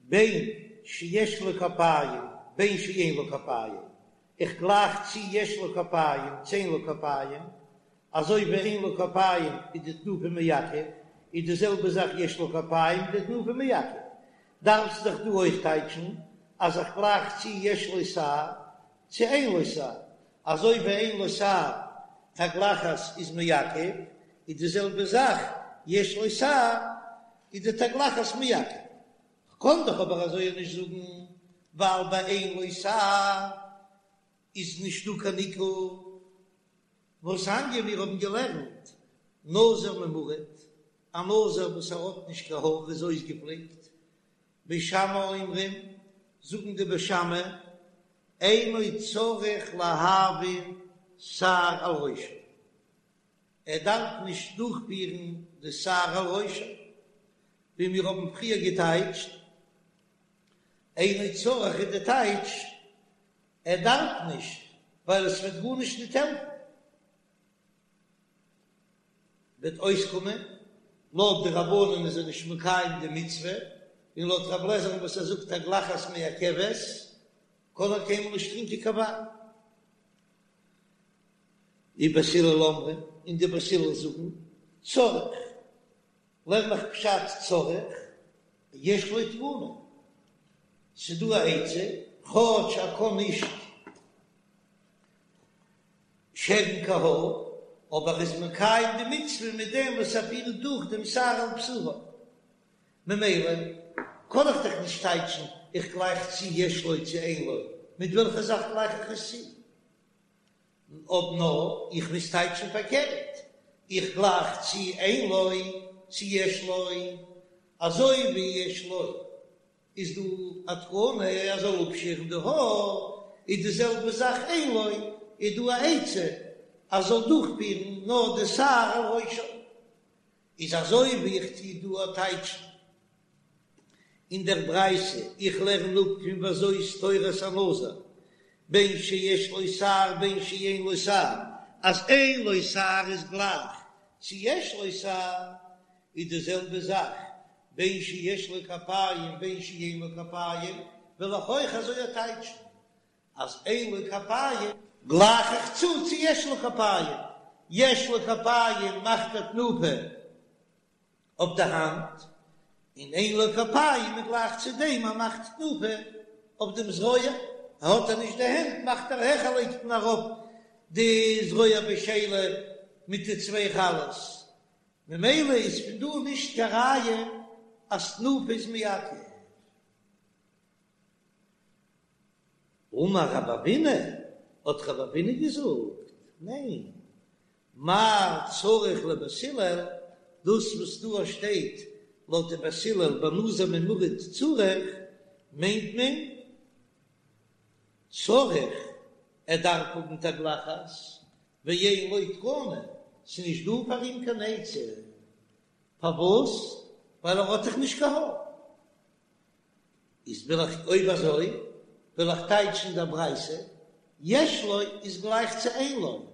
S1: בין שיש לו כפיים בין שאין לו כפיים, איך גלייך צו יש לו כפיים צו אין לו כפיים, אזוי ווי אין לו כפיים איז די תנופה מעכב, איז די זעלבע זאך יש לו כפיים די תנופה מעכב. דארפסט דאך דא אויך טייטשן אז איך גלייך צו יש לו שער צו אין לו שער, אזוי ווי אין לו שער תגלחת איז מעכב, איז די זעלבע זאך יש לו שער איז די תגלחת מעכב. כ'קען דאך אבער אזוי נישט זאגן, ווייל ביי אין לו שער איז נישט דא קיין עיכוב. והתניא מיר האבן געלערנט נזיר ממורט, א נזיר וואס ער האט נישט קיין האר איז אויסגעפליקט, בית שמאי אומרים, זאגן די בית שמאי, אינו צריך להעביר שער על ראשו, ער דארף נישט דורכפירן די שער על ראשו, ווי מיר האבן פריער געטייטשט, אינו צריך איז די טייטש, ער דארף נישט, ווייל עס וועט גארנישט ניט העלפן. וועט אויסקומען, לויט די רבנן איז ער נישט מקיים די מצוה, און לויט רב לעזער'ן וואס ער זאגט תגלחת מעכבת, קען ער קיינמאל נישט טרינקען קיין וויין. ובית הלל אומרים, און די בית הלל זאגן, צריך, לערן איך פשט צריך, יש לו תקנה, ס'דא א עצה, כאטש ער קען נישט שערן קיין האר, אבער ער איז מקיים די מצוה מיט דעם וואס ער פירט דורך דעם שער על בשרו. ממילא קען איך דאך נישט טייטשן איך גלייך צו יש לו צו אין לו, מיט וועלכע זאך גלייך איך עס צו? אויב נאר איך מוז טייטשן פארקערט, איך גלייך צו אין לו צו יש לו, אזוי ווי יש לו איז דא א תקנה ער זאל אפשערן די האר, איז די זעלבע זאך אין לו איז דא א עצה אז זאל דורכפירן נאר די שער על ראשו, איז אזוי ווי איך טו דא טייטשן אין דער ברייתא, איך לערן אפ פון וזאת תורת הנזיר, בין שיש לו שער בין שאין לו שער, אז אין לו שער איז גלייך צו יש לו שער, איז די זעלבע זאך בין שיש לו כפיים בין שאין לו כפיים, וועל איך אויך אזוי טייטשן אז אין לו כפיים גלייך איך צו צו יש לו כפיים, יש לו כפיים מאכט ער תנופה אויף די האנט, און אין לו כפיים איז גלייך צו דעם אז מאכט תנופה אויף דעם זרוע, האט ער נישט די הענט מאכט ער העכער לייגט מען ארויף די זרוע בשלה מיט די צוויי חלות, ממילא איז פון דא נישט קיין ראיה אז תנופה איז מעכב. אמר רב אבינא, האט רב אבינא געזאגט, ניין, מאי צריך לבית הלל, דאס וואס דא שטייט לויט די בית הלל בנזיר ממורט צריך, מיינט מען צריך, ער דארף האבן תגלחת, ואין לו תקנה, ס'איז נישט דא פאר אים קיין עצה, פארוואס? ווייל ער האט דאך נישט קיין האר. איז וויל איך אויב אזוי וויל איך טייטשן דער ברייתא, יש לו איז גלייך צו אין לו,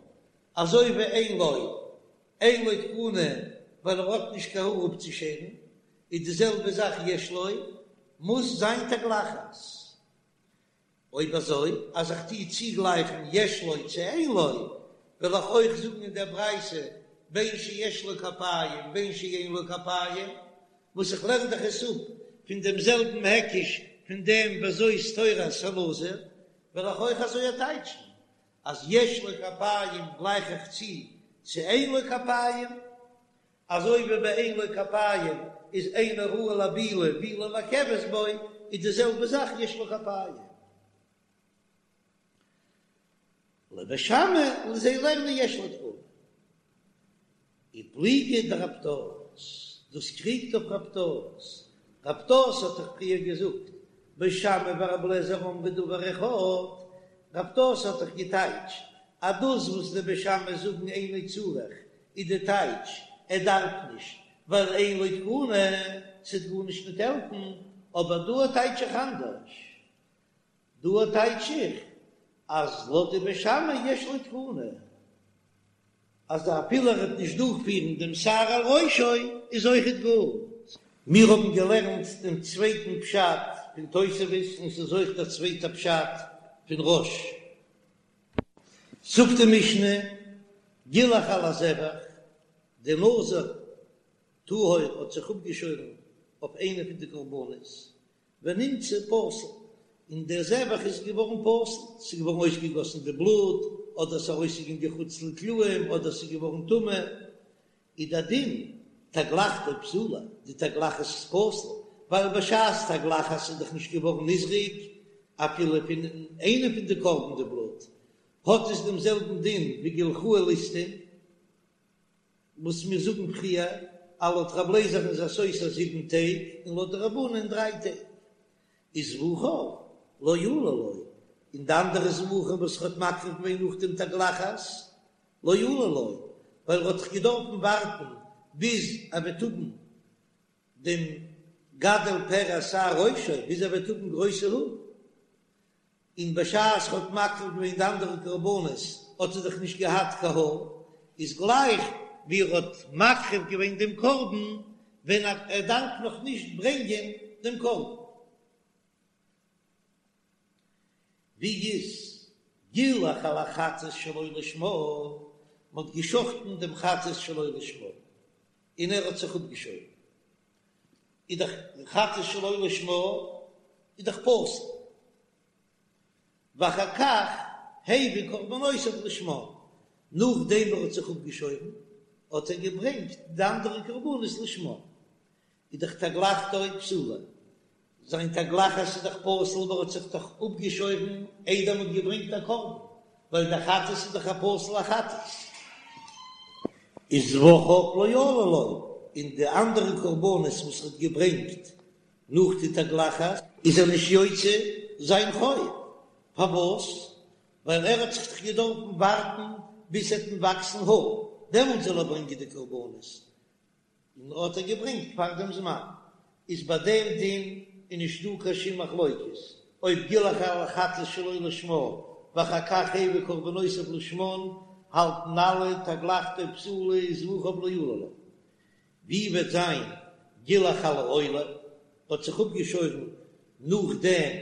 S1: אזוי ווי אין לו אין לו תקנה ווייל ער האט נישט קיין האר אפצושערן, איז די זעלבע זאך יש לו מוז זיין תגלחת. אויב אזוי אז איך טוה צוגלייכן יש לו צו אין לו, וועל איך אויך זאגן אין דער ברייתא בין שיש לו כפיים בין שאין לו כפיים, וואס איך לערן דאך עס אפ פון דעם זעלבן היקש פון דעם וזאת תורת הנזיר, וועל איך אויך אזוי טייטשן. אז יש לו כפיים גלייך איך צו צו אין לו כפיים, אזוי ווי ביי אין לו כפיים איז אינו ראוי לבילה, בילה מעכבת בו, איז די זעלבע זאך יש לו כפיים. לבית שמאי און זיי לערנען יש לו תקנה. ופליגא דרב פדת, דאס קריגט אויף רב פדת, רב פדת האט דאך פריער געזאגט בית שמאי ורבי אליעזר אמרו דבר אחד, רב פדת האט דאך געטייטשט אז דאס וואס די בית שמאי זאגן אינו צריך איז די טייטש ער דארף נישט ווייל אין לו תקנה, ס'וועט גארנישט ניט העלפן, אבער דא טייטש איך אנדערש, דא טייטש איך אז לויט די בית שמאי יש לו תקנה אז אפילו ער וועט נישט דורכפירן דעם שער על ראשו איז אויכעט גוט. מיר האבן געלערנט דעם צווייטן פשט פון תוספות און ס'איז אויך דער צווייטער פשט פון רא"ש. זאגט די משנה, גילח על הזבח, די נזיר טהור האט זיך אפגעשוירן אויף איינע פון די קרבנות, ונמצא פסול, און דער זבח איז געווארן פסול, ס'איז געווארן אויסגעגאסן די בלוט, אדער ס'איז ארויסגעגאנגען חוץ לקלעים, אדער ס'איז געווארן טמא, איז דער דין, תגלחתו פסולה, די תגלחת איז פסול, ווייל בשעת תגלחת איז דאך נישט געווארן נזרק אפילו פון איינע פון די קרבן די בלוט, האט עס דעם זעלבן דין ווי גילחוהו ליסטים. וואס מיר זאגן פריער, אז לויט רב לעזער'ן איז ער סותר זיבן טעג און לויט די רבנן דריי טעג, איז זבחיו לא עלו לו, און די אנדערע זבחים וואס ער האט מקריב געווען נאך דעם תגלחת לא עלו לו, ווייל ער האט דאך געדארפן ווארטן ביז ער וועט האבן דעם גדל פרע שער ראשו, ביז ער וועט האבן גרויסע האר. און בשעת ער האט מקריב געווען די אנדערע קרבנות האט ער דאך נישט געהאט קיין האר, איז גלייך ווי ער האט מקריב געווען דעם קרבן ווען ער דארף נאך נישט ברענגען דעם קרבן. ווי איז גילח על החטאת שלא לשמה, מען האט געשחטן דעם חטאת שלא לשמה און ער האט זיך אפגעשוירן, איז דאך חטאת שלא לשמה איז דאך פסול, ואחר כך הביא קרבנותיו לשמה, נאכדעם ער האט זיך אפגעשוירן האט ער געברענגט די אנדערע קרבנות לשמה, איז דאך תגלחתו פסולה, זיין תגלחת איז דאך פסול ווייל ער האט זיך דאך אפגעשוירן איידער מ'האט געברענגט א קרבן, ווייל דער חטאת איז דאך א פסול'ע חטאת. איז זבחיו לא עלו לו, און די אנדערע קרבנות וואס ער האט געברענגט נאך די תגלחת איז ער נישט יוצא זיין חוב, פארוואס? ווייל ער האט זיך דאך געדארפן ווארטן ביז ס'עט אים וואקסן האר, דעמאלט זאל ער ברענגען די קרבנות, און האט ער געברענגט פאר דעם זמן, איז ביי דעם דין איז נישט דא קיין שום מחלוקת, אויב גילח על החטאת שלא לשמה ואחר כך הביא קרבנותיו לשמן, האלטן אלע תגלחתו פסולה וזבחיו לא עלו לו. ווי וועט זיין גילח על העולה, האט זיך אפגעשוירן נאכדעם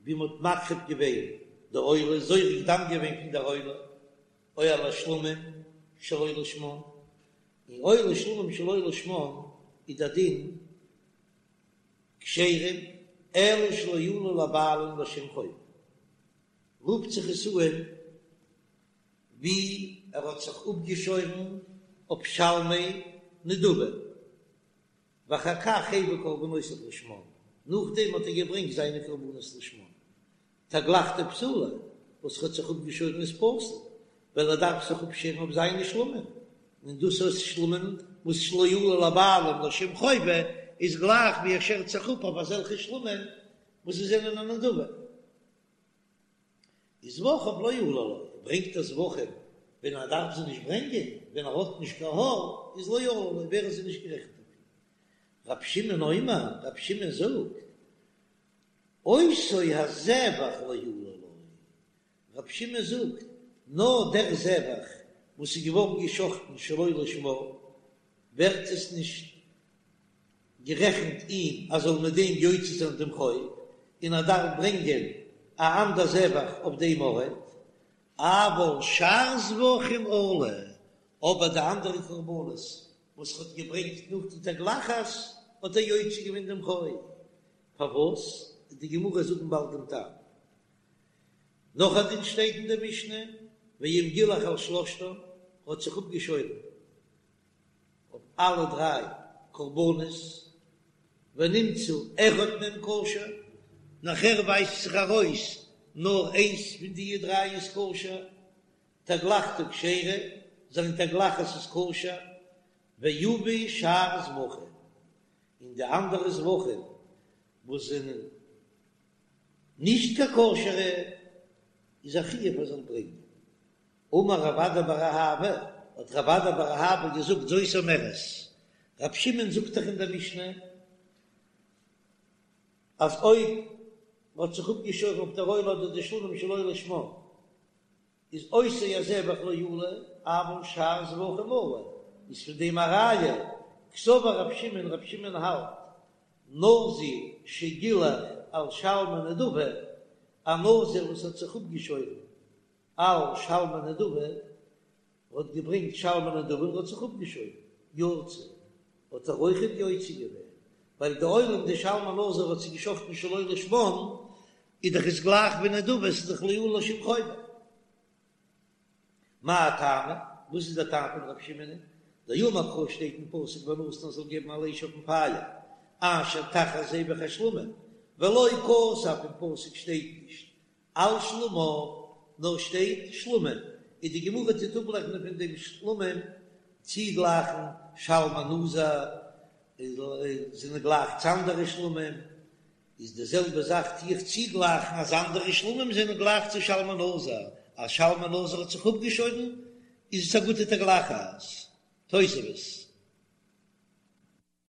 S1: ווי מ'האט מקריב געווען די עולה, זורק דם געווען פון דער עולה, או על השלמים שלא לשמן, און עולה שלמים שלא לשמן איז דער דין כשרים אלא שלא עלו לבעלים לשם חובה, רופט זיך עס אן ווי ער האט זיך אפגעשוירן אויף שלמי נדבה, ואחר כך הביא קרבנותיו לשמן, נאכדעם האט ער געברענגט זיינע קרבנות לשמן, תגלחתו פסולה, וואס ער האט זיך אפגעשוירן איז פסול, ווייל ער דארף זיך אפשערן אויף זיינע שלמים, און דאס איז שלמים וואס שלא עלו לבעלים לשם חובה, איז גלייך ווי ער שערט זיך אפ אויף אזעלכע שלמים וואס זיי זענען א נדבה. איז זבחיו לא עלו לו, ברענגט ער זבחים ווען ער דארף זיי נישט ברענגען, ווען ער האט נישט קיין האר, איז לא עלו לו, ווערן זיי נישט גערעכנט אויף אים. רב שמעון אומר, רב שמעון זאגט, אותו הזבח לא עלו לו, רב שמעון זאגט, נאר דער זבח וואס איז געווארן געשחטן שלא לשמה, ווערט עס נישט גערעכנט אים אז זאל מיט דעם יוצא זיין דעם חוב, און ער דארף ברענגען א אנדער זבח אויף דעם ארט, אבל שאר זבחים עלו, אבער די אנדערע קרבנות וואס ער האט געברענגט נאך די תגלחת האט ער יוצא געווען דעם חוב, פארוואס? וועט די גמרא זאגן באלד דעם טעם. נאך א דין שטייט אין די משנה, ואם גילח על שלשתן, האט זיך אפגעשוירן אויף אלע דריי קרבנות, ונמצא אחד מהם כשר, נאכער ווייזט זיך ארויס נאר איינס פון די דריי איז כשר, תגלחתו כשרה, זיין תגלחת איז כשר, ויביא שאר זבחים, און די אנדערע זבחים וואס זענען נישט קיין כשר'ע איז א חיוב ער זאל ברענגען. אמר רב אדא בר אהבה, האט רב אדא בר אהבה געזאגט זאת אומרת, רב שמעון זאגט דאך אין דער משנה אז אויב מ'האט זיך אפגעשוירן אויף דער עולה אדער די שלמים שלא לשמה, איז אותו הזבח לא עלה, אבל שאר זבחים עלו, איז פון דעם א ראיה, קסבר רב שמעון, רב שמעון האלט, נזיר שגילח על שלמי נדבה, א נזיר וואס האט זיך אפגעשוירן על שלמי נדבה, האט געברענגט שלמי נדבה און האט זיך אפגעשוירן, יצא, האט ער אויכעט יוצא געווען, ווייל די עולה און די שלמי נזיר האט זיך געשחטן שלא לשמן, איז דאך עס גלייך ווי נדבה, ס'איז דאך לא עלה שום חובה. מאי טעמא? וואס איז דער טעם פון רב שמעון? דאמר קרא שטייט אין פסוק ונתן זאל געבן על האש אויפן פייער אשר תחת זבח השלמים, ולא כתב אין פסוק שטייט נישט על שלמיו, נאר שטייט שלמים, און די גמרא טוט אפלערנען פון דעם שלמים צוגלייכן שלמי נזיר זענען גלייך צו אנדערע שלמים, איז די זעלבע זאך טו איך צוגלייכן אז אנדערע שלמים זענען גלייך צו שלמי נזיר, אז שלמי נזיר האט זיך אפגעשוירן איז עס א גוטע תגלחת. תוספות.